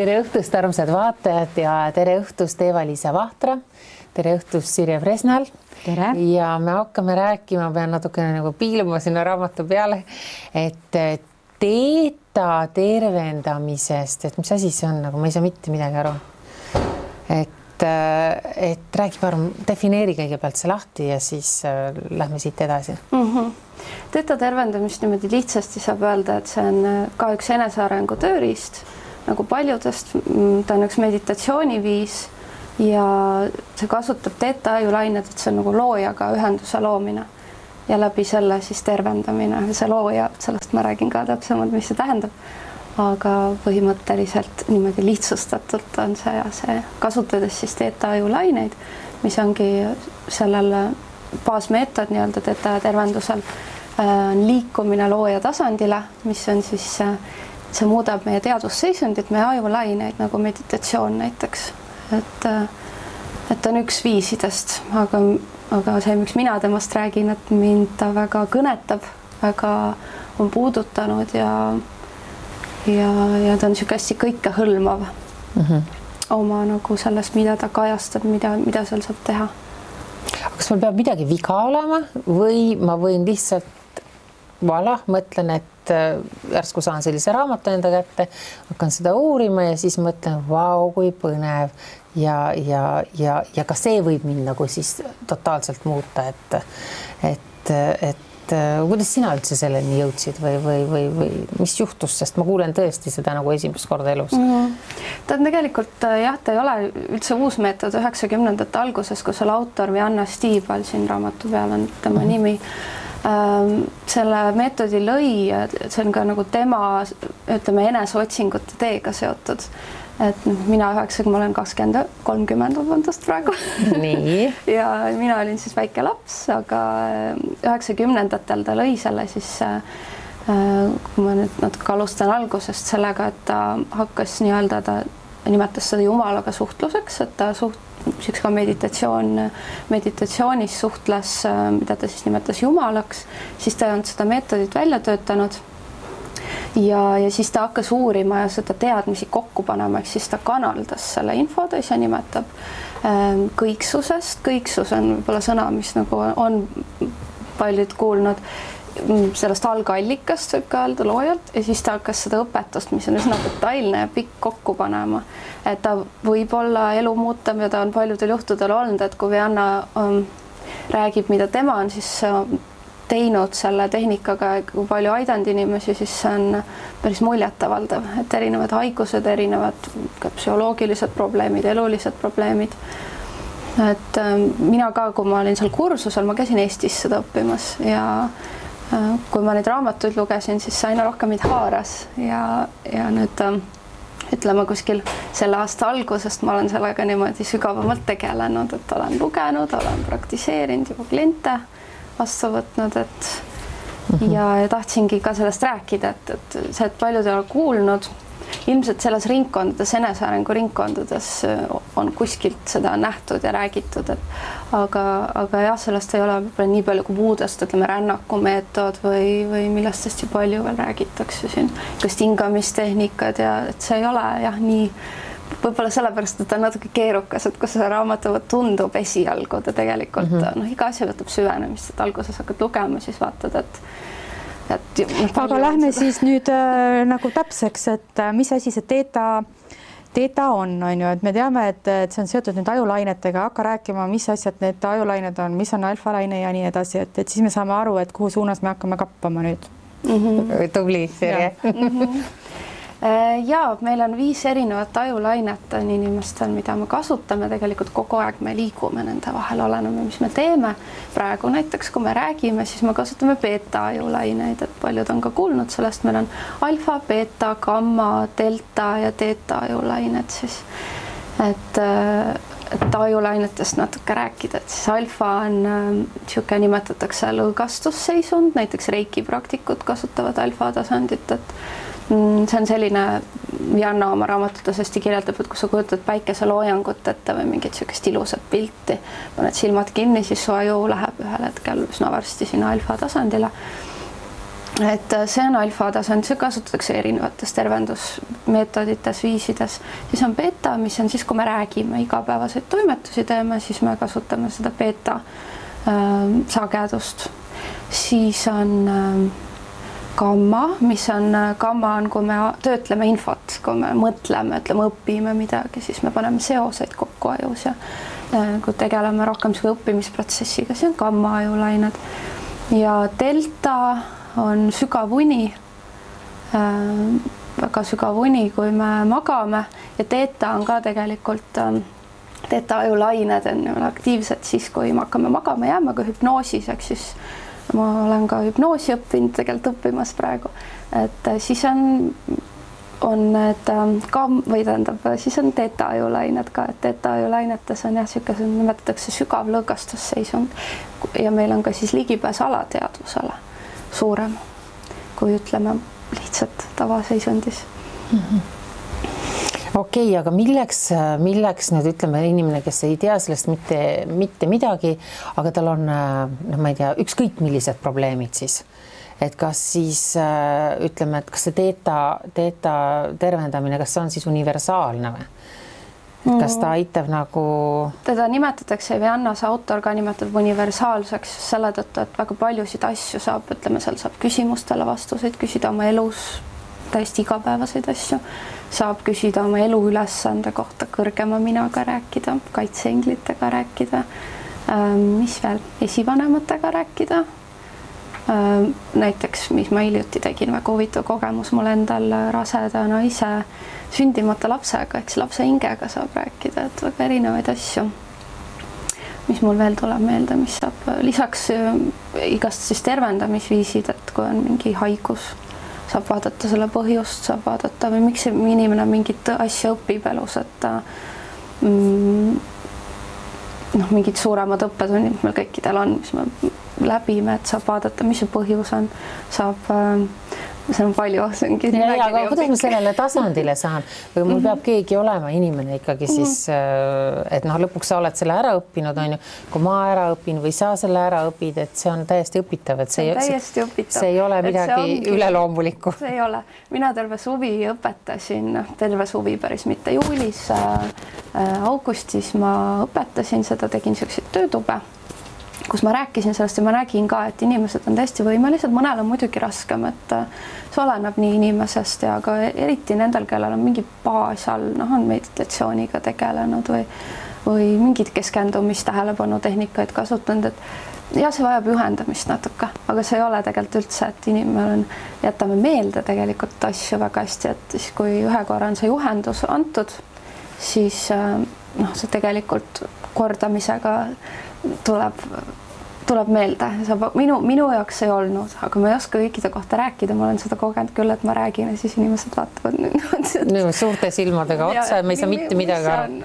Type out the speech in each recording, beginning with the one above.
Tere õhtust, armsad vaatajad ja tere õhtust Eva-Liisa Vahtra. Tere õhtust Sirje Fresnal. Tere. Ja me hakkame rääkima, pean natukene nagu piiluma sinna raamatu peale, et teeta tervendamisest, et mis asi see on, nagu ma ei saa mitte midagi aru. Et räägi parem, defineeri kõigepealt see lahti ja siis lähme siit edasi. Teeta tervendamist niimoodi lihtsasti saab öelda, et see on ka üks enesearengu tööriist, nagu paljudest, ta on üks meditatsiooniviis ja see kasutab teeta ajulained, et see on nagu loojaga ühenduse loomine ja läbi selle siis tervendamine. See looja, sellest ma räägin ka täpsemalt, mis see tähendab. Aga põhimõtteliselt niimoodi lihtsustatult on see kasutades siis teeta ajulaineid, mis ongi sellel baasmeetod nii-öelda teeta tervendusel liikumine looja tasandile, mis on siis see muudab meie teadvusseisundit, meie ajulaineid nagu meditatsioon näiteks. Et on üks viisidest, aga see, miks mina temast räägin, et mind ta väga kõnetab, väga on puudutanud ja ta on niisugune hästi kõikehõlmav oma nagu sellest, mida ta kajastab, mida seal saab teha. Kas mul peab midagi viga olema või ma võin lihtsalt mõtlen, et järsku saan sellise raamatu enda kätte, hakkan seda uurima ja siis mõtlen, vau, kui põnev ja ka see võib mind nagu siis totaalselt muuta, et kuidas sina üldse selleni jõudsid või mis juhtus, sest ma kuulen tõesti seda nagu esimest korda elus. Ta on tegelikult, jah, ta ei ole üldse uus meetod 90ndate alguses, kus oli autor Vianna Stiibal, siin raamatu peal on tema nimi. Selle meetodi lõi, see on ka nagu tema, ütleme, eneseotsingute teega seotud. Et mina ma olen 30 praegu. Nii. Ja mina olin siis väike laps, aga 90ndatel ta lõi selle siis, kui ma nüüd natuke alustan algusest sellega, et ta hakkas nii-öelda, ta nimetas seda jumalaga suhtluseks, et ta ka meditatsioonis suhtles, mida ta siis nimetas jumalaks, siis ta on seda meetodit välja töötanud. Ja siis ta hakkas uurima ja seda teadmisi kokku panema, ehk siis ta kanaldas selle info, ta ise nimetab kõiksusest. Kõiksus on võib-olla sõna, mis nagu on paljud kuulnud sellest algallikast, võib ka öelda loojalt, ja siis ta hakkas seda õpetust, mis on üsna detailne ja pikk kokku panema. Et ta võib olla elu muutam ja ta on paljudel juhtudel olnud, et kui Vianna räägib, mida tema on siis teinud selle tehnikaga, kui palju aidanud inimesi, siis see on päris muljetavaldav, et erinevad haigused, erinevad psühholoogilised probleemid, elulised probleemid. Et mina ka, kui ma olin seal kursusel, ma käisin Eestis seda õppimas ja kui ma neid raamatuid lugesin, siis aina rohkem mind haaras ja nüüd ütleme kuskil selle aasta algusest ma olen sellega niimoodi sügavamalt tegelenud, et olen lugenud, olen praktiseerinud juba kliente vastu võtnud, ja tahtsingi ka sellest rääkida, et see, et paljud ei ole kuulnud, ilmselt selles ringkondades, enesearengu ringkondades on kuskilt seda nähtud ja räägitud, aga jah, sellest ei ole nii palju kui muudest, ütleme, rännakumeetod või millest hästi palju veel räägitakse siin, kas hingamistehnikad ja et see ei ole jah nii võib-olla sellepärast, et on natuke keerukas, et kus see raamatu tundub esialgu, ta tegelikult iga asja võtab süvenemist, et alguses hakkad lugema, siis vaatad, aga lähme siis nüüd nagu täpseks, et mis asi see teeta on ju, et me teame, et see on seotud nüüd ajulainetega, hakka rääkima, mis asjad need ajulained on, mis on alfalaine ja nii edasi, et siis me saame aru, et kuhu suunas me hakkame kappama nüüd. Tubli, Sirje. Ja meil on 5 erinevat ajulainet on inimestel, mida me kasutame, tegelikult kogu aeg me liigume nende vahel, oleneme, mis me teeme. Praegu näiteks, kui me räägime, siis me kasutame beta ajulaineid, et paljud on ka kuulnud sellest, meil on alfa, beta, gamma, delta ja teeta ajulained siis. Et ajulainetest natuke rääkida, et siis alfa on siuke nimetatakse lõõgastusseisund, näiteks reiki praktikud kasutavad alfa tasandit, et see on selline, Vianna oma raamatutes hästi kirjeldab, et kui sa kujutad päikeseloojangut ette või mingit siukest ilusat pilti, paned silmad kinni, siis su aju läheb ühel hetkel üsna varsti sinna alfa tasandile. et see on alfa-tasand, see kasutatakse erinevates tervendusmeetodites, viisides. Siis on beta, mis on siis, kui me räägime, igapäevaseid toimetusi teeme, siis me kasutame seda beta sagedust. Siis on gamma, gamma on, kui me töötleme infot, kui me mõtleme, ütleme, õpime midagi, siis me paneme seoseid kokku ajus ja kui tegeleme rohkem õppimisprotsessiga, siis on gamma ajulained. Ja delta on sügav uni, väga sügav uni, kui me magame, ja theta on ka tegelikult, theta ajulained on aktiivsed siis, kui me hakkame magama, jääme ka hüpnoosis, eks siis ma olen ka hüpnoosi õppinud, tegelikult õppimas praegu, et siis on need siis on theta ajulained ka, et theta ajulainetes on siukese, nimetatakse sügav lõõgastusseisund ja meil on ka siis ligipääs alateadvusele suurem, kui ütleme lihtsalt tavaseisundis. Okei, aga milleks nüüd ütleme inimene, kes ei tea sellest mitte midagi, aga tal on, ma ei tea, ükskõik millised probleemid siis, et kas siis ütleme, et kas see theta tervendamine, kas see on siis universaalne või? Kas ta aitab nagu... Teda nimetatakse, Viannas autor ka nimetab universaalseks selle tõttu, et väga paljusid asju saab, ütleme, seal saab küsimustele vastuseid küsida oma elus, täiesti igapäevaseid asju, saab küsida oma elu ülesande kohta, kõrgema minaga rääkida, kaitseenglitega rääkida, mis veel, esivanematega rääkida. Näiteks, mis ma hiljuti tegin, väga huvitav kogemus mul endal raseda naise sündimata lapsega, eks lapse hingega saab rääkida, et väga erinevaid asju. Mis mul veel tuleb meelde, mis saab lisaks igast siis tervendamisviisid, et kui on mingi haigus, saab vaadata selle põhjust, saab vaadata või miks inimene mingit asja õpib elus, et mingid suuremad õppetunnid, mis meil kõikidel on, mis me läbime, et saab vaadata, mis see põhjus on, saab, see on palju, see ongi aga kuidas ma sellele tasandile saan? Või mul peab keegi olema inimene ikkagi siis, et lõpuks sa oled selle ära õppinud, on ju, kui ma ära õpin või sa selle ära õpid, et see on täiesti õpitav, et see ei ole midagi üleloomulikku. See ei ole. Mina terve suvi õpetasin, terve suvi päris mitte juulis, augustis ma õpetasin seda, tegin selliseid töötube, kus ma rääkisin sellest ja ma nägin ka, et inimesed on täiesti võimelised, mõnel on muidugi raskem, et see oleneb nii inimesest ja ka eriti nendel, kellel on mingi baas all, on meditatsiooniga tegelenud või mingid keskendumist, tähelepanu tehnikaid kasutanud, et ja see vajab juhendamist natuke, aga see ei ole tegelikult üldse, et inimene jätame meelde tegelikult asju väga hästi, et siis kui ühe korra on see juhendus antud, siis see tegelikult kordamisega tuleb meelde, minu jaoks ei olnud, aga ma ei oska kõikide kohta rääkida, ma olen seda kogenud küll, et ma räägin ja siis inimesed vaatavad nüüd suurte silmadega otsa ja me ei saa mitte midagi aru.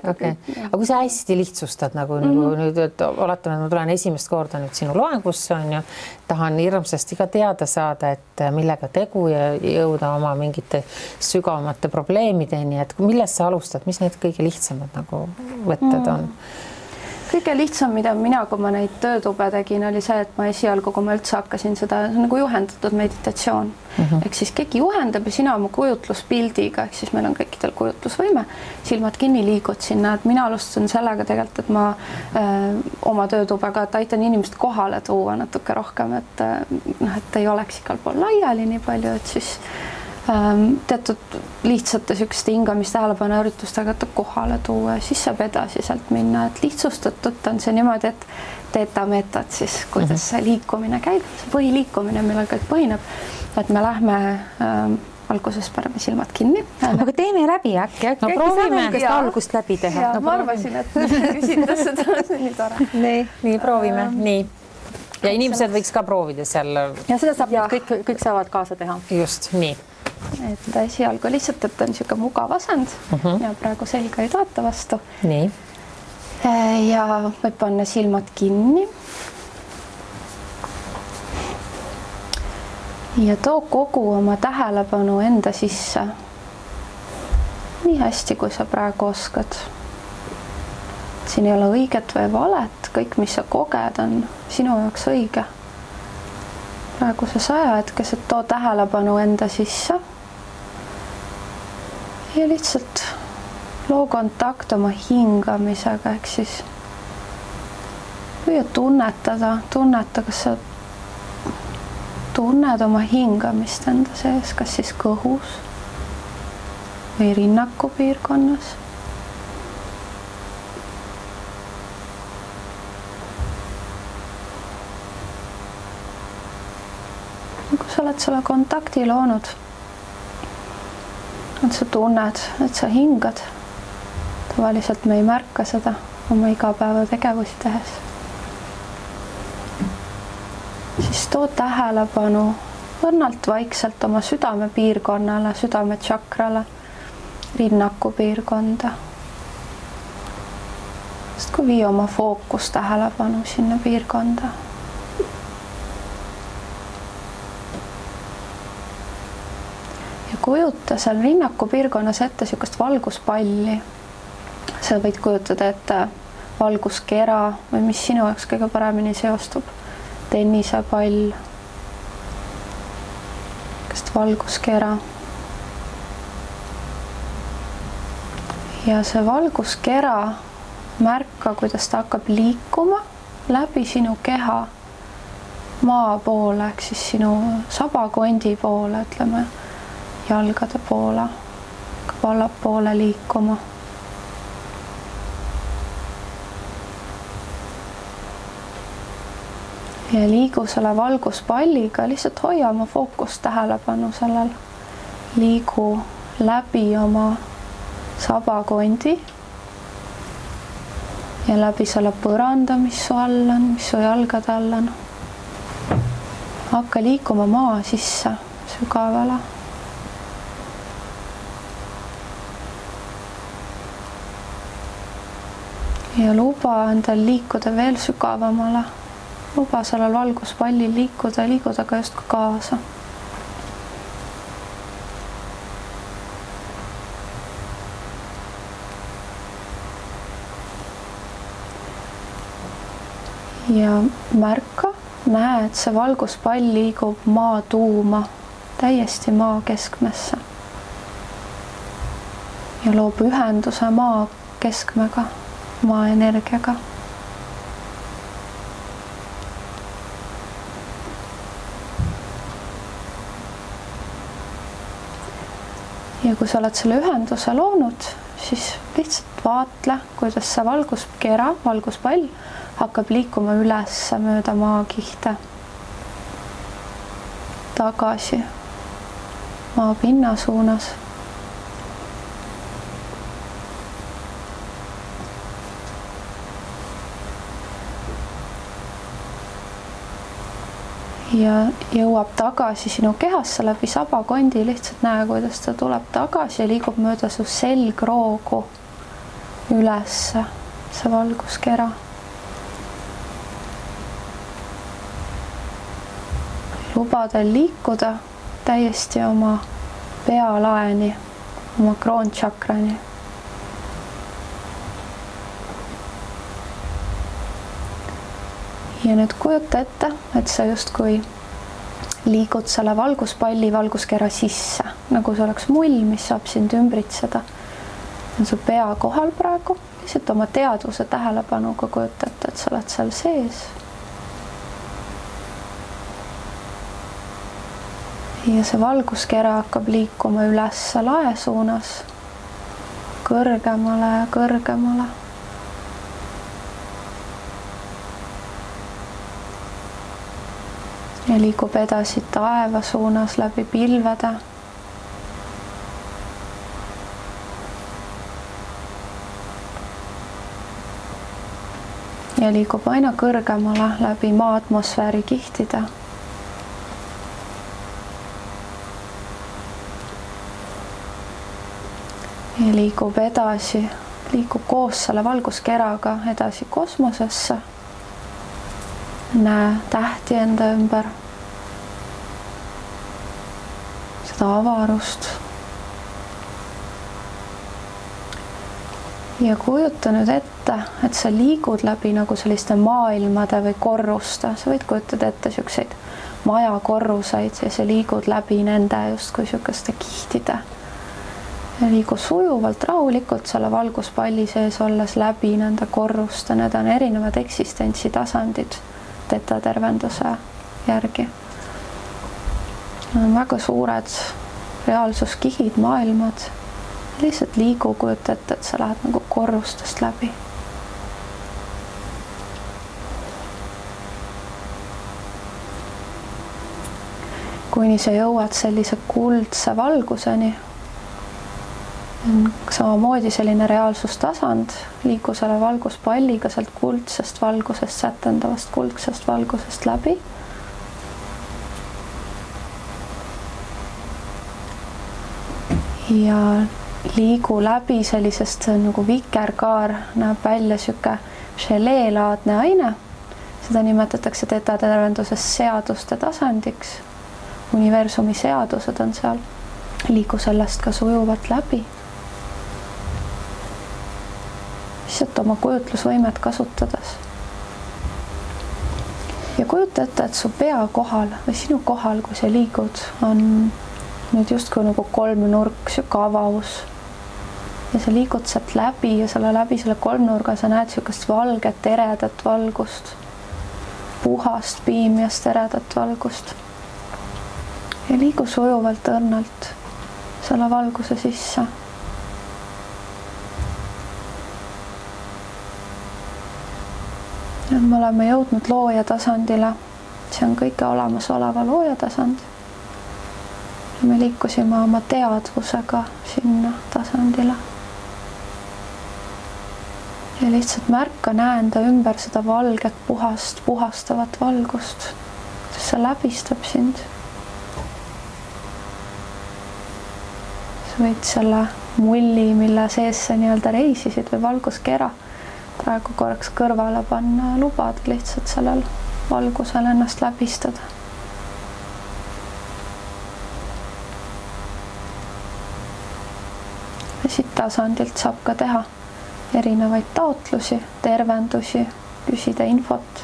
Aga kui sa hästi lihtsustad nüüd, et oletame, et ma tulen esimest korda nüüd sinu loengusse, on ju, tahan hirmsasti ka teada saada, et millega tegu ja jõuda oma mingite sügavamate probleemideni, et millest sa alustad, mis need kõige lihtsamad võtted on? Kõige lihtsam, mida mina, kui ma neid töötube tegin, oli see, et ma esialgu, kui ma üldse hakkasin seda nagu juhendatud meditatsioon. Ehk siis keegi juhendab ja sina oma kujutluspildiga, ehk siis meil on kõikidel kujutlusvõime, silmad kinni liigud sinna, et mina alustasin sellega tegelikult, et ma oma töötubega, et aitan inimest kohale tuua natuke rohkem, et ei oleks igal pool laiali nii palju, et siis teatud lihtsate sükeste hingamist tähelepanu üritustega kohale tuua ja siis saab edasi sealt minna, et lihtsustatult on see niimoodi, et theta meetod siis, kuidas see liikumine käib, see põhiliikumine, millel kõik põhineb, et me lähme alguses paneme silmad kinni. Aga teeme läbi äkki proovime algust läbi teha. Ma arvasin, et küsida seda, see on nii tore. Nii, proovime, nii. Ja inimesed võiks ka proovida seal. Ja seda saab kõik saavad kaasa teha. Just, nii. Et esialgu lihtsalt, et on niisugune mugav asend ja praegu selga ei toeta vastu. Nii. Ja võib panna silmad kinni. Ja too kogu oma tähelepanu enda sisse. Nii hästi, kui sa praegu oskad. Siin ei ole õiget või valet, kõik, mis sa koged, on sinu jaoks õige. praeguses ajahetkes, et too tähelepanu enda sisse ja lihtsalt loo kontakt oma hingamisega, ehk siis püüa tunneta, kas sa tunned oma hingamist enda sees, kas siis kõhus või rinnaku piirkonnas. Kui sa oled selle kontakti loonud, et sa tunned, et sa hingad, tavaliselt me ei märka seda oma igapäevategevusi tehes, siis too tähelepanu õrnalt vaikselt oma südamepiirkonnale, südametšakrale, rinnaku piirkonda. Sest kui vii oma fookus tähelepanu sinna piirkonda. Ja kujuta seal rinnaku piirkonnas ette sükast valguspalli. Sa võid kujutada ette valguskera või mis sinu jaoks kõige paremini seostub. Tennisepall, valguskera. Ja see valguskera märka, kuidas ta hakkab liikuma läbi sinu keha maa poole, ehk siis sinu sabakondi poole, ütleme, jalgade poole, hakkab allapoole liikuma. Ja liigu selle valguspalliga, lihtsalt hoia oma fookust tähelepanu sellel. Liigu läbi oma sabakondi ja läbi selle põranda, mis su all on, mis su jalgade all on. Hakka liikuma maa sisse sügavale. Ja luba endal liikuda veel sügavamale. Luba sellel valguspallil liikuda ka just kaasa. Ja märka, näe, et see valguspall liigub maa tuuma, täiesti maa keskmesse. Ja loob ühenduse maa keskmega, maa energiaga. Ja kui sa oled selle ühenduse loonud, siis lihtsalt vaatle, kuidas see valguskera, valguspall hakkab liikuma üles mööda maakihte. Tagasi maapinna suunas. Ja jõuab tagasi sinu kehasse läbi sabakondi, lihtsalt näe, kuidas ta tuleb tagasi ja liigub mööda su selgroogu üles see valguskera. Luba teil liikuda täiesti oma pealaeni, oma kroontšakrani. Ja nüüd kujuta ette, et sa justkui liigud selle valguspalli valguskera sisse, nagu see oleks mull, mis saab sind ümbritseda. On su pea kohal praegu, lihtsalt oma teadvuse tähelepanuga kujutate, et sa oled seal sees. Ja see valguskera hakkab liikuma üles lae suunas, kõrgemale ja kõrgemale. Ja liigub edasi taeva suunas läbi pilvede. Ja liigub aina kõrgemale läbi maa atmosfääri kihtide. Ja liigub edasi, liigub koos selle valguskeraga edasi kosmosesse. Näe tähti enda ümber, seda avarust. Ja kujuta nüüd ette, et sa liigud läbi nagu selliste maailmade või korruste. Sa võid kujutada ette siukseid maja korruseid ja sa liigud läbi nende justkui niisuguste kihtide. Ja liigu sujuvalt, rahulikult selle valguspalli sees olles läbi nende korruste, need on erinevad eksistentsitasandid teta tervenduse järgi. Need on väga suured reaalsuskihid, maailmad. Lihtsalt liigu, kujuta ette, et sa lähed nagu korrustest läbi. Kuni sa jõuad sellise kuldse valguseni, samamoodi selline reaalsustasand, liigu selle valguspalliga sealt kuldsest valgusest, sätendavast kuldsest valgusest läbi. Ja liigu läbi sellisest nagu vikerkaar, näeb välja siuke želeelaadne aine. Seda nimetatakse teta tervenduses seaduste tasandiks. Universumi seadused on seal. Liigu sellest ka sujuvalt läbi. Lihtsalt oma kujutlusvõimet kasutades. Ja kujuta ette, et su pea kohal või sinu kohal, kui sa liigud, on nüüd justkui nagu kolmnurk, siuke avaus. Ja sa liigud sealt läbi ja läbi selle kolmnurga sa näed siukest valget, eredat valgust. Puhast, piimjast, eredat valgust. Ja liigu sujuvalt õrnalt selle valguse sisse. Nüüd me oleme jõudnud looja tasandile. See on kõige olemasoleva looja tasand. Ja me liikusime oma teadvusega sinna tasandile. Ja lihtsalt märka, näe enda ümber seda valget, puhastavat valgust. See läbistab sind. Sa võid selle mulli, mille sees sa nii-öelda reisisid või valguskera praegu korraks kõrvale panna ja lubada lihtsalt sellel valgusel ennast läbistada. Ja siit tasandilt saab ka teha erinevaid taotlusi, tervendusi, küsida infot.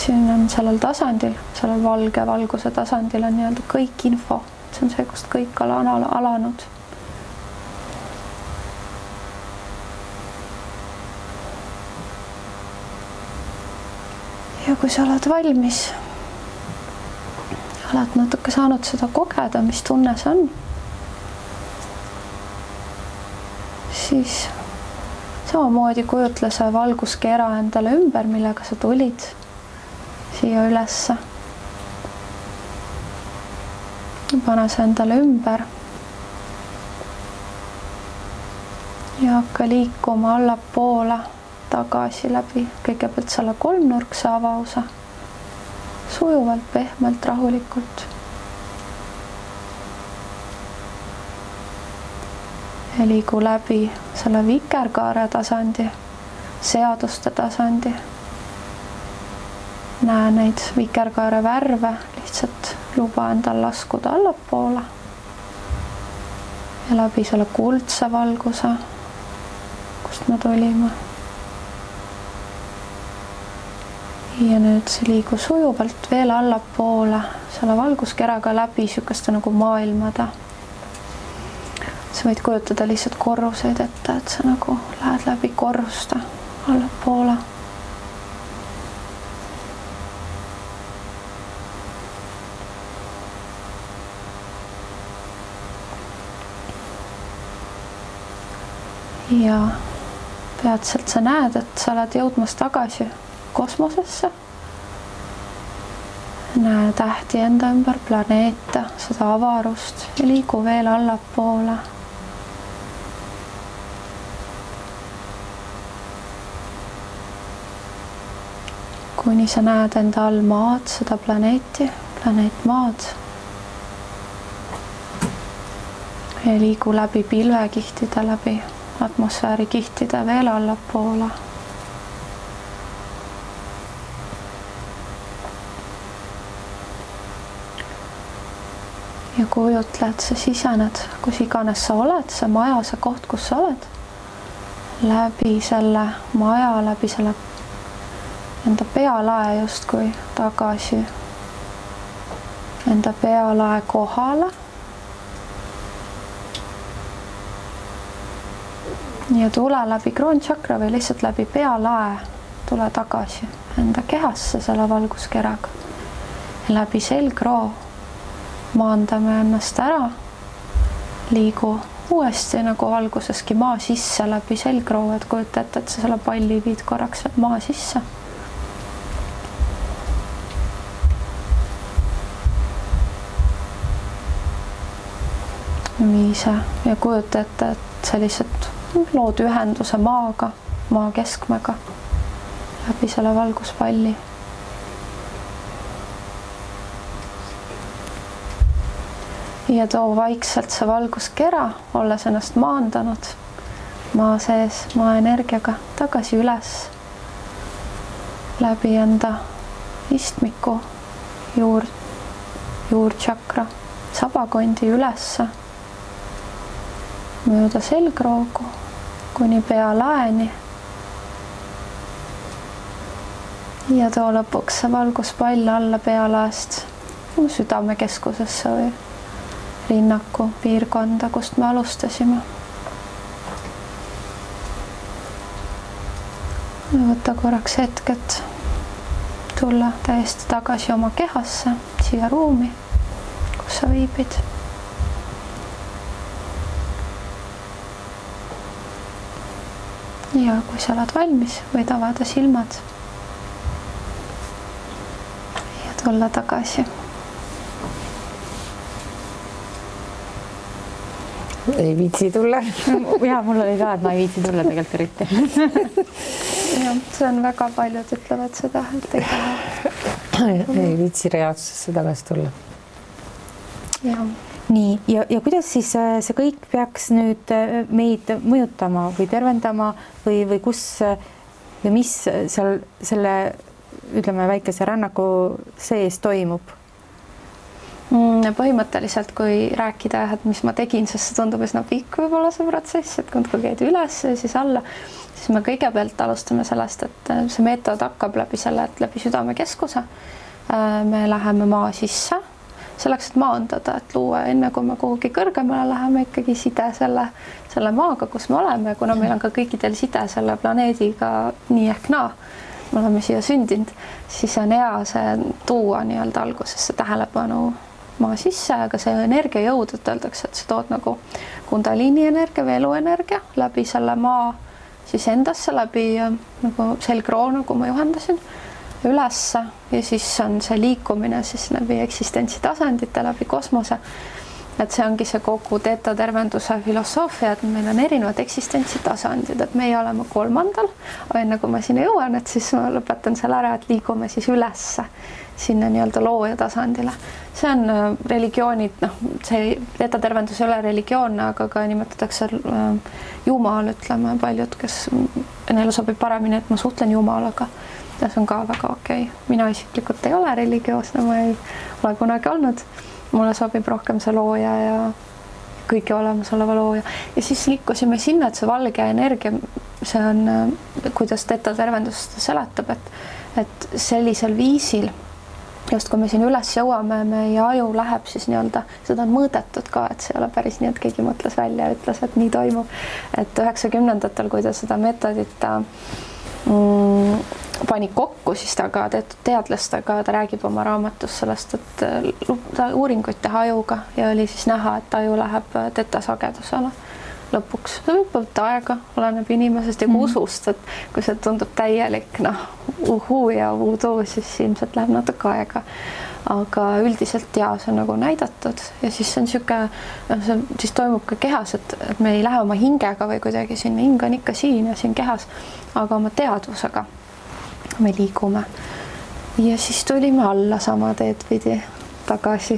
Siin on sellel tasandil, sellel valge valguse tasandil on nii-öelda kõik info. See on see, kust kõik on alanud. Ja kui sa oled valmis, oled natuke saanud seda kogeda, mis tunne see on, siis samamoodi kujutle see valguskera endale ümber, millega sa tulid siia ülesse. Pane see endale ümber ja hakka liikuma allapoole tagasi läbi kõigepealt selle kolmnurkse avause. Sujuvalt, pehmelt, rahulikult. Ja liigu läbi selle vikerkaare tasandi, seaduste tasandi. Näe neid vikerkaare värve, lihtsalt luba endal laskuda allapoole. Ja läbi selle kuldse valguse, kust me tulime. Ja nüüd see liigu sujuvalt veel allapoole selle valguskeraga läbi siukeste nagu maailmade. Sa võid kujutada lihtsalt korruseid ette, et sa nagu lähed läbi korruste allapoole. Ja peatselt sa näed, et sa oled jõudmas tagasi kosmosesse. Näe tähti enda ümber, planeete, seda avarust ja liigu veel allapoole. Kuni sa näed enda all maad, seda planeeti, planeet maad. Ja liigu läbi pilvekihtide, läbi atmosfäärikihtide veel allapoole. Ja kujutle, et sa sisened, kus iganes sa oled, see maja, see koht, kus sa oled. Läbi selle maja, läbi selle enda pealae justkui tagasi, enda pealae kohale. Ja tule läbi kroonchakra või lihtsalt läbi pealae, tule tagasi enda kehasse selle valguskeraga. Läbi selgroo maandame ennast ära, liigu uuesti nagu alguseski maa sisse läbi selgroo, et kujuta ette, et sa selle palli viid korraks maa sisse. Viise ja kujuta ette, et sa lihtsalt lood ühenduse maaga, maa keskmega läbi selle valguspalli. Ja too vaikselt see valguskera, olles ennast maandanud maa sees, maa energiaga tagasi üles läbi enda istmiku, juurtšakra, sabakondi ülesse, mööda selgroogu kuni pealaeni. Ja too lõpuks see valguspall alla pealaest südamekeskusesse või rinnaku piirkonda, kust me alustasime. Võta korraks hetk, et tulla täiesti tagasi oma kehasse, siia ruumi, kus sa viibid. Ja kui sa oled valmis, võid avada silmad ja tulla tagasi. Ei viitsi tulla. Ja mul oli ka, et ma ei viitsi tulla tegelikult eriti. Ja, see on väga paljud ütlevad seda, et ei taha. Ei viitsi reaalsusesse tagasi tulla. Ja. Nii, ja kuidas siis see kõik peaks nüüd meid mõjutama või tervendama või kus või mis seal selle, ütleme, väikese rännaku sees toimub? Põhimõtteliselt, kui rääkida, et mis ma tegin, sest see tundub üsna pikk võib-olla see protsess, et kui käid üles ja siis alla, siis me kõigepealt alustame sellest, et see meetod hakkab läbi selle, et läbi südamekeskuse me läheme maa sisse, selleks, et maandada, et luua enne, kui me kuhugi kõrgemale läheme, ikkagi side selle maaga, kus me oleme, kuna meil on ka kõikidel side selle planeediga nii ehk naa, me oleme siia sündinud, siis on hea see tuua nii-öelda algusesse tähelepanu maa sisse, aga see energiajõud, et öeldakse, et sa tood nagu kundaliini energia või eluenergia läbi selle maa siis endasse, läbi nagu selgroo, nagu ma juhendasin, ülesse ja siis on see liikumine siis läbi eksistentsi tasandite, läbi kosmose. Et see ongi see kogu teetatervenduse filosoofia, et meil on erinevad eksistentsi tasandid, et meie oleme 3. aga enne kui ma sinna jõuan, et siis ma lõpetan selle ära, et liigume siis ülesse sinna nii-öelda looja tasandile. See on religioonid, see teetatervendus ei ole religioonne, aga ka nimetatakse Jumal, ütleme paljud, kes neile sobib paremini, et ma suhtlen Jumalaga. Ja see on ka väga okei. Mina isiklikult ei ole religioosne, ma ei ole kunagi olnud. Mulle sobib rohkem see looja ja kõige olemasoleva looja. Ja siis liikusime sinna, et see valge energia, see on, kuidas teetatervendus seletab, et sellisel viisil, just kui me siin üles jõuame, meie aju läheb siis nii-öelda, seda on mõõdetud ka, et see ei ole päris nii, et keegi mõtles välja ja ütles, et nii toimub. Et 90-ndatel, kui ta seda meetodit pani kokku, siis ta ka teadlastega, ta räägib oma raamatus sellest, et ta uuringuid teha ajuga ja oli siis näha, et aju läheb tetasagedusele lõpuks. See võib võtta aega, oleneb inimesest ja usust, et kui see tundub täielik uhuu ja voodoo, siis ilmselt läheb natuke aega. Aga üldiselt ja see on nagu näidatud ja siis see on niisugune, siis toimub ka kehas, et me ei lähe oma hingega või kuidagi sinna, hing on ikka siin ja siin kehas, aga oma teadvusega me liigume. Ja siis tulime alla sama teed pidi tagasi.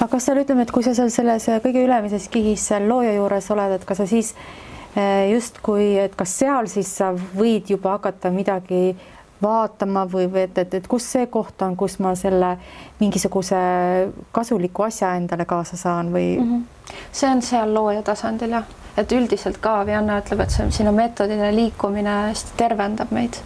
Aga kas sa ütleme, et kui sa selles kõige ülemises kihis seal looja juures oled, et kas sa siis just kui, et kas seal siis sa võid juba hakata midagi vaatama või et kus see koht on, kus ma selle mingisuguse kasuliku asja endale kaasa saan või? See on seal looja tasandil, jah. Et üldiselt ka Vianna ütleb, et siin on meetodine liikumine hästi tervendab meid.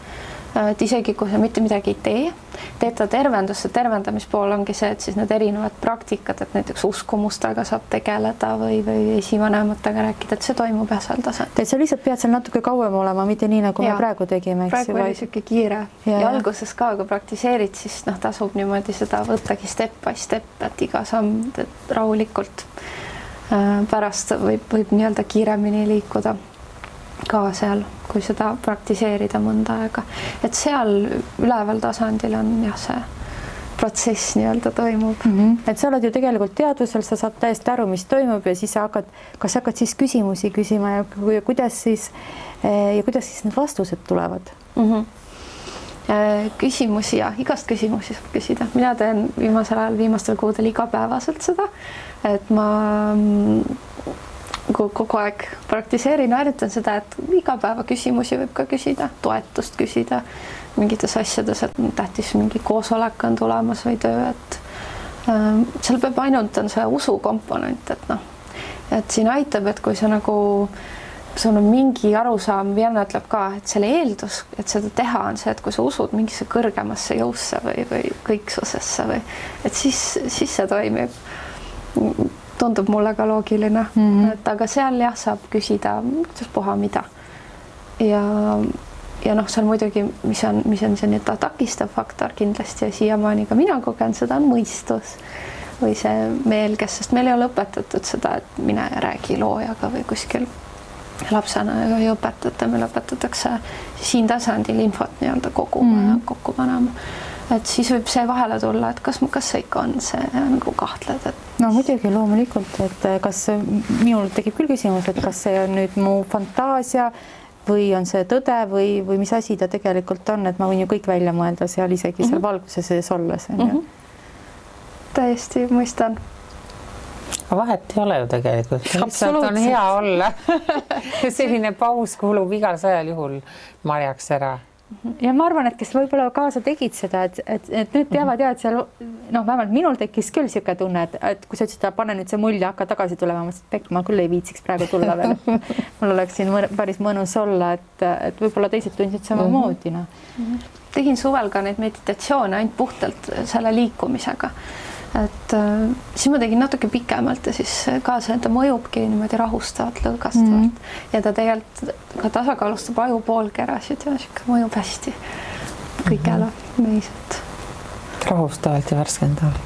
et isegi kui sa mitte midagi ei tee, teeta tervendus, tervendamispool ongi see, et siis need erinevad praktikad, et näiteks uskumustega saab tegeleda või esivanematega rääkida, et see toimub seal tasandil. Et sa lihtsalt pead seal natuke kauem olema, mitte nii, nagu me praegu tegime. Praegu oli siuke kiire ja alguses ka, kui praktiseerid, siis tasub niimoodi seda võttagi step by step, et iga samm rahulikult. Pärast võib nii-öelda kiiremini liikuda ka seal, kui seda praktiseerida mõnda aega. Et seal üleval tasandil on see protsess nii-öelda toimub. Et sa oled ju tegelikult teadvusel, sa saad täiesti aru, mis toimub ja siis kas hakkad siis küsimusi küsima ja kuidas siis need vastused tulevad? Küsimusi ja igast küsimusi saab küsida. Mina teen viimastel kuudel igapäevaselt seda, et ma kogu aeg praktiseerin, harjutan seda, et iga päeva küsimusi võib ka küsida, toetust küsida mingites asjades, et tähtis mingi koosolek on tulemas või töö, et seal peab ainult on see usu komponent, et siin aitab, et kui sa sul on mingi arusaam, Vienna ütleb ka, et selle eeldus, et seda teha on see, et kui sa usud mingisse kõrgemasse jõusse või kõiksusesse või et siis see toimib. Tundub mulle ka loogiline, et aga seal saab küsida, kuidas puha mida. Ja seal muidugi, mis on see nüüd takistav faktor kindlasti ja siiamaani ka mina kogen, seda on mõistus või see meelges, sest meil ei ole õpetatud seda, et mine ja räägi loojaga või kuskil lapsena ei õpetata, meil õpetatakse siin tasandil infot nii-öelda koguma ja kokku panema. Et siis võib see vahele tulla, et kas see ikka on see nagu kahtled, et no muidugi loomulikult, et kas minul tekib küll küsimus, et kas see on nüüd mu fantaasia või on see tõde või mis asi ta tegelikult on, et ma võin ju kõik välja mõelda seal isegi seal valguse sees olles. Täiesti mõistan. Vahet ei ole ju tegelikult. Lihtsalt on hea olla. Selline paus kuulub igal sajal juhul marjaks ära. Ja ma arvan, et kes võib-olla kaasa tegid seda, et nüüd teavad et seal, vähemalt minul tekkis küll siuke tunne, et kui sa ütlesid, pane nüüd see mulje, hakka tagasi tulema, ma küll ei viitsiks praegu tulla veel. Mul oleks siin päris mõnus olla, et võib-olla teised tundsid samamoodi. Tegin suvel ka neid meditatsioone ainult puhtalt selle liikumisega. Et siis ma tegin natuke pikemalt ja siis ka see, ta mõjubki niimoodi rahustavalt, lõõgastavalt ja ta tegelikult ka tasakaalustab aju poolkerasid ja mõjub hästi kõigele meiselt. Rahustavalt ja värskendavalt.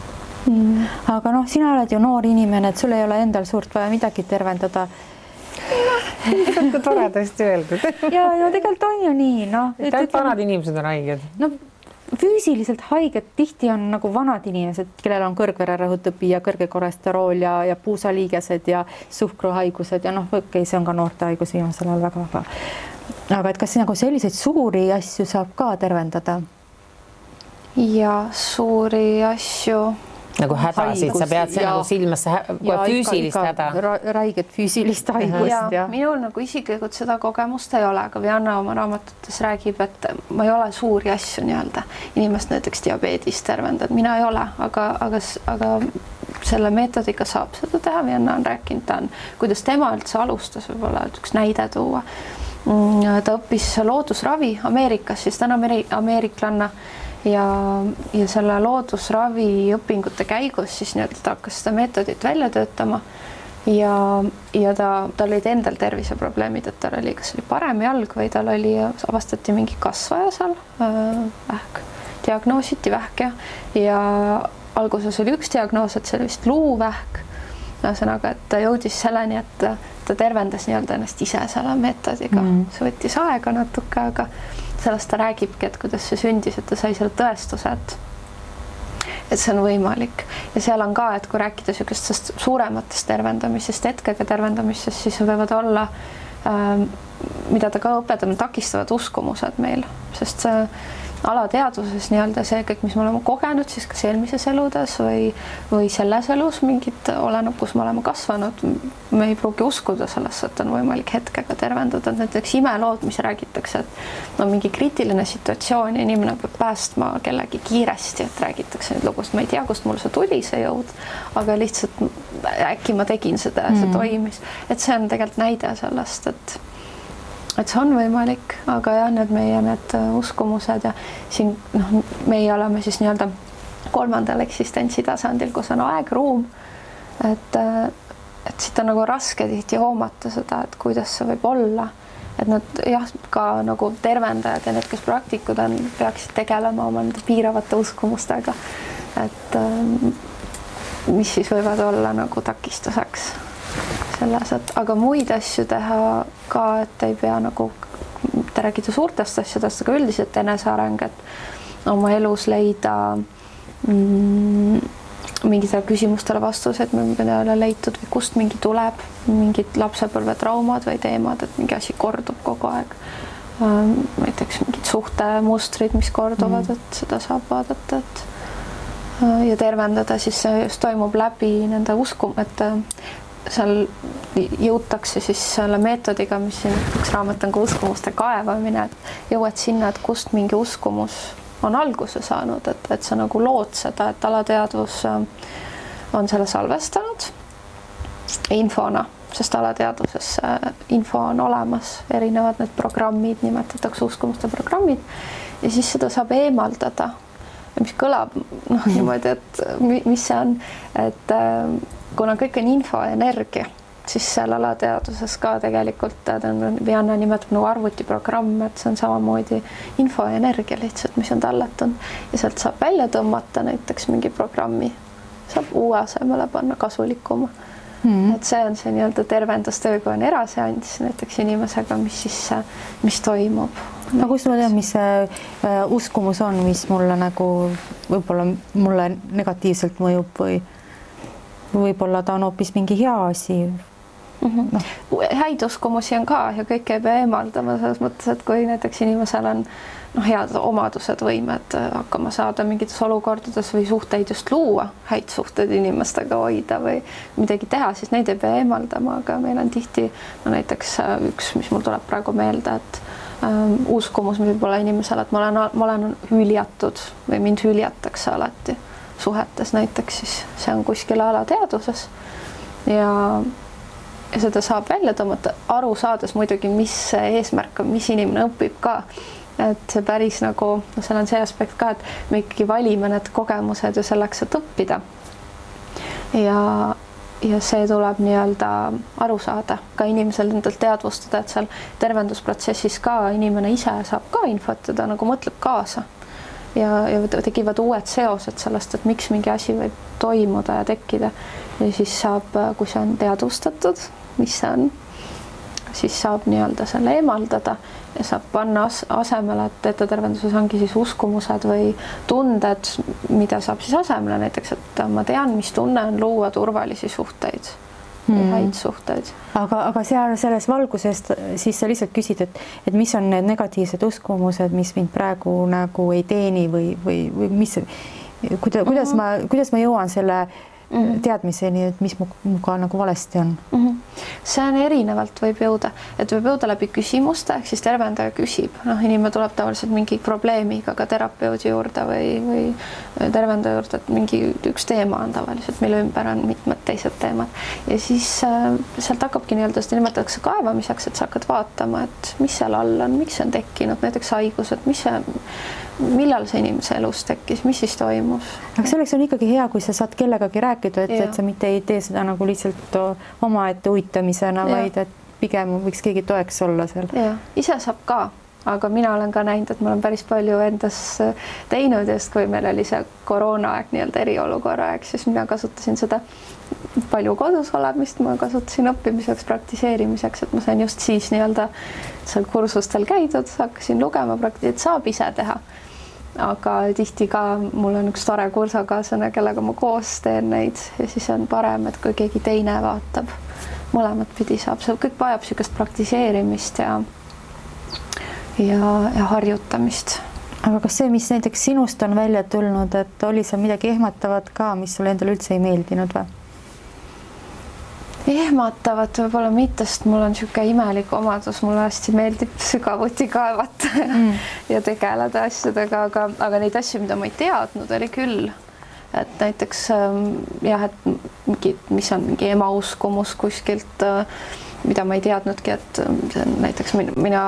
Aga sina oled ju noor inimene, et sul ei ole endal suurt vaja midagi tervendada. Kui toredasti öeldud. Ja tegelikult on ju nii. Et vanad inimesed on haiged. Füüsiliselt haiged tihti on nagu vanad inimesed, kellel on kõrgvererõhutõbi ja kõrge kolesterool ja puusaliigesed ja suhkruhaigused ja see on ka noorte haigus viimasel ajal väga. Aga et kas nagu selliseid suuri asju saab ka tervendada? Ja suuri asju. Nagu hädasid, sa pead see nagu silmasse füüsilist häda. Räiget füüsilist haigust. Minul nagu isiklikult seda kogemust ei ole, aga Vianna oma raamatutes räägib, et ma ei ole suuri asju nii-öelda. Inimest näiteks diabeedist tervendad, mina ei ole, aga selle meetodiga saab seda teha. Vianna on rääkinud, kuidas tema üldse alustas, võib-olla üks näide tuua. Ta õppis loodusravi Ameerikas, siis ta on ameeriklanna. Ja selle loodusravi õpingute käigus siis ta hakkas seda meetodit välja töötama ja tal olid endal terviseprobleemid, et tal oli kas oli parem jalg või tal oli, avastati mingi kasvaja seal, vähk, diagnoositi vähk ja alguses oli üks diagnoos, et see oli vist luuvähk. Ühesõnaga, et ta jõudis selleni, et ta tervendas nii-öelda ennast ise selle meetodiga. See võttis aega natuke, aga sellest ta räägibki, et kuidas see sündis, et ta sai selle tõestuse, et see on võimalik. Ja seal on ka, et kui rääkida niisugustest suurematest tervendamisest, hetkega tervendamisest, siis võivad olla, mida ta ka õpetab, takistavad uskumused meil, sest see alateadvuses nii-öelda see kõik, mis me oleme kogenud siis kas eelmises eludes või selles elus mingit oleneb, kus me oleme kasvanud, me ei pruugi uskuda sellesse, et on võimalik hetkega tervendada. Näiteks imelood, mis räägitakse, et mingi kriitiline situatsioon ja inimene peab päästma kellegi kiiresti, et räägitakse nüüd lugust, ma ei tea, kust mul see tuli, see jõud, aga lihtsalt äkki ma tegin seda ja see toimis. Et see on tegelikult näide sellest, et see on võimalik, aga jah, need uskumused ja siin meie oleme siis nii-öelda kolmandal eksistentsi tasandil, kus on aeg, ruum, et siit on nagu raske tihti hoomata seda, et kuidas see võib olla, et nad jah, ka nagu tervendajad ja need, kes praktikud on, peaksid tegelema oma nende piiravate uskumustega, et mis siis võivad olla nagu takistuseks selles, et aga muid asju teha ka, et ei pea nagu, te räägite suurtest asjadest, aga üldiselt eneseareng, et oma elus leida mingitele küsimustele vastused, mida ei ole leitud või kust mingi tuleb, mingid lapsepõlvetraumad või teemad, et mingi asi kordub kogu aeg. Näiteks mingid suhtemustrid, mis korduvad, et seda saab vaadata, et ja tervendada, siis see just toimub läbi nende et seal jõutakse siis selle meetodiga, mis siin üks raamat on ka uskumuste kaevamine, et jõuad sinna, et kust mingi uskumus on alguse saanud, et sa nagu lood seda, et alateadvus on selle salvestanud infona, sest alateadvuses info on olemas, erinevad need programmid, nimetatakse uskumuste programmid ja siis seda saab eemaldada, mis kõlab niimoodi, et mis see on, et kuna kõik on info ja energia, siis seal alateadvuses ka tegelikult Vianna nimetab nagu arvutiprogramm, et see on samamoodi info ja energia lihtsalt, mis on tallatunud ja sealt saab välja tõmmata näiteks mingi programmi, saab uue asemele panna kasulikuma. Et see on see nii-öelda tervendustöö, kui on eraseanss näiteks inimesega, mis toimub. No kust ma tean, mis see uskumus on, mis mulle nagu võib-olla mulle negatiivselt mõjub või võib-olla ta on hoopis mingi hea asi. Häid uskumusi on ka ja kõik ei pea eemaldama selles mõttes, et kui näiteks inimesel on head omadused, võimed hakkama saada mingites olukordades või suhteid just luua, häid suhteid inimestega hoida või midagi teha, siis neid ei pea eemaldama, aga meil on tihti näiteks üks, mis mul tuleb praegu meelde, et uskumus, mis võib olla inimesele, et ma olen hüljatud või mind hüljatakse alati suhetes näiteks, siis see on kuskil alateadvuses ja seda saab välja tõmmata, aru saades muidugi, mis see eesmärk on, mis inimene õpib ka, et see päris nagu, seal on see aspekt ka, et me ikkagi valime need kogemused ju selleks, et õppida ja see tuleb nii-öelda aru saada, ka inimesel endalt teadvustada, et seal tervendusprotsessis ka inimene ise saab ka infot, ta nagu mõtleb kaasa ja tekivad uued seosed sellest, et miks mingi asi võib toimuda ja tekkida ja siis saab, kui see on teadvustatud, mis see on, siis saab nii-öelda selle eemaldada ja saab panna asemele, et teetatervenduses ongi siis uskumused või tunded, mida saab siis asemele, näiteks, et ma tean, mis tunne on luua turvalisi suhteid, häid suhteid. Aga selles valguses siis sa lihtsalt küsid, et mis on need negatiivsed uskumused, mis mind praegu nagu ei teeni või mis, kuidas ma jõuan selle teadmiseni, et mis muga nagu valesti on? See on erinevalt võib jõuda, et võib jõuda läbi küsimuste, ehk siis tervendaja küsib, inimene tuleb tavaliselt mingi probleemiga ka terapeudi juurde või tervendaja juurde, et mingi üks teema on tavaliselt, mille ümber on mitmed teised teemad ja siis sealt hakkabki nii-öelda, seda nimetatakse kaevamiseks, et sa hakkad vaatama, et mis seal all on, miks see on tekkinud, näiteks haigused, millal see inimese elus tekkis, mis siis toimus. Aga selleks on ikkagi hea, kui sa saad kellegagi rääkida, et sa mitte ei tee seda nagu lihtsalt omaette uitamisena, vaid et pigem võiks keegi toeks olla seal. Ja, ise saab ka, aga mina olen ka näinud, et ma olen päris palju endas teinud, just kui meil oli see koroonaaeg, nii-öelda eriolukorra aeg, siis mina kasutasin seda palju kodus olemist, ma kasutasin õppimiseks, praktiseerimiseks, et ma sain just siis nii-öelda seal kursustel käidud, hakkasin lugema, et saab ise teha. Aga tihti ka mul on üks tore kursakaaslane, kellega ma koos teen neid ja siis on parem, et kui keegi teine vaatab, mõlemat pidi saab, see kõik vajab niisugust praktiseerimist ja harjutamist. Aga kas see, mis näiteks sinust on välja tulnud, et oli seal midagi ehmatavat ka, mis sulle endale üldse ei meeldinud või? Ehmatavat võib-olla mitte, sest mul on niisugune imelik omadus, mulle hästi meeldib sügavuti kaevata ja tegeleda asjadega, aga neid asju, mida ma ei teadnud, oli küll. Et näiteks jah, et mis on mingi ema uskumus kuskilt mida ma ei teadnudki, et näiteks mina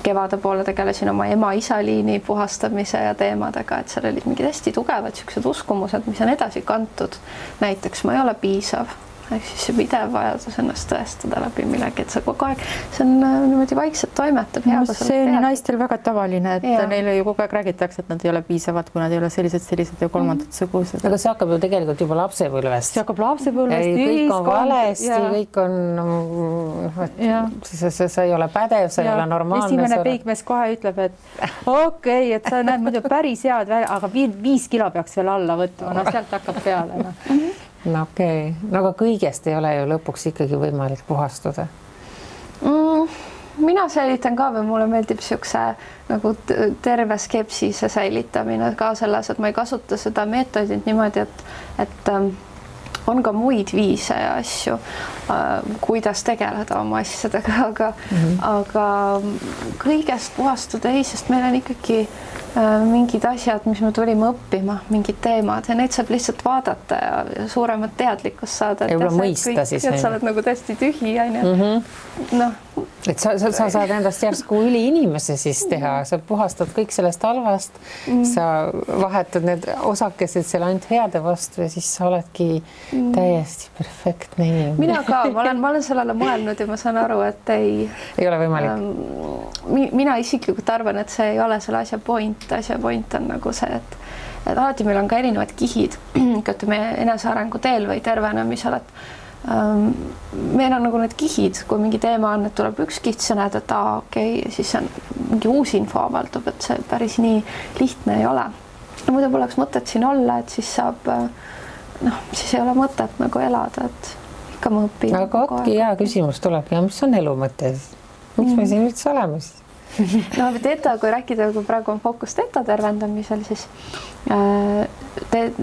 kevade poole tegelesin oma ema-isa liini puhastamise ja teemadega, et seal olid mingid hästi tugevad siuksed uskumused, mis on edasi kantud. Näiteks ma ei ole piisav. Ehk siis see pidev vajadus ennast tõestada läbi millegi, et see kogu aeg, see on niimoodi vaikselt toimetab. See on naistel väga tavaline, et neile ju kogu aeg räägitakse, et nad ei ole piisavad, kui nad ei ole sellised ja kolmandad sugused. Aga see hakkab ju tegelikult juba lapsepõlvest. See hakkab lapsepõlvest. Kõik on valesti, kõik on, sa ei ole pädev, sa ei ole normaalne. Esimene peigmees kohe ütleb, et okei, et sa näed muidu päris head välja, aga 5 kilo peaks veel alla võtma, no sealt hakkab peale. No okei. No aga kõigest ei ole ju lõpuks ikkagi võimalik puhastuda. Mina säilitan ka või mulle meeldib siukse nagu terve skepsise säilitamine ka selles, et ma ei kasuta seda meetodit niimoodi, et on ka muid viise ja asju, kuidas tegeleda oma asjadega, aga kõigest puhastuda ei, sest meil on ikkagi mingid asjad, mis me tulime õppima, mingid teemad ja neid saab lihtsalt vaadata ja suuremat teadlikkust saada. Ja mõista siis. Et sa oled nagu täiesti tühi, et sa saad endast järsku üliinimese siis teha, sa puhastad kõik sellest halvast, sa vahetad need osakesed seal ainult heade vastu ja siis sa oledki täiesti perfektne inimene. Mina ka, ma olen sellele mõelnud ja ma saan aru, et ei ole võimalik. Mina isiklikult arvan, et see ei ole selle asja point. Asja point on nagu see, et alati meil on ka erinevad kihid, ütleme enesearengu teel või tervenemisel, et meil on nagu need kihid, kui mingi teema on, et tuleb üks kiht, sa näed, et okei, siis on mingi uus info avaldub, et see päris nii lihtne ei ole. Muidu poleks mõtet siin olla, et siis saab, siis ei ole mõtet nagu elada, et ikka ma õpin. Aga otki hea küsimus tulebki, mis on elu mõte? Miks me siin üldse oleme siis? No teeta, kui rääkida, kui praegu on fookus teeta tervendamisel, siis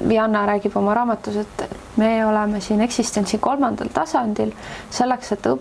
Vianna räägib oma raamatus, et me oleme siin eksistentsi 3. tasandil selleks, et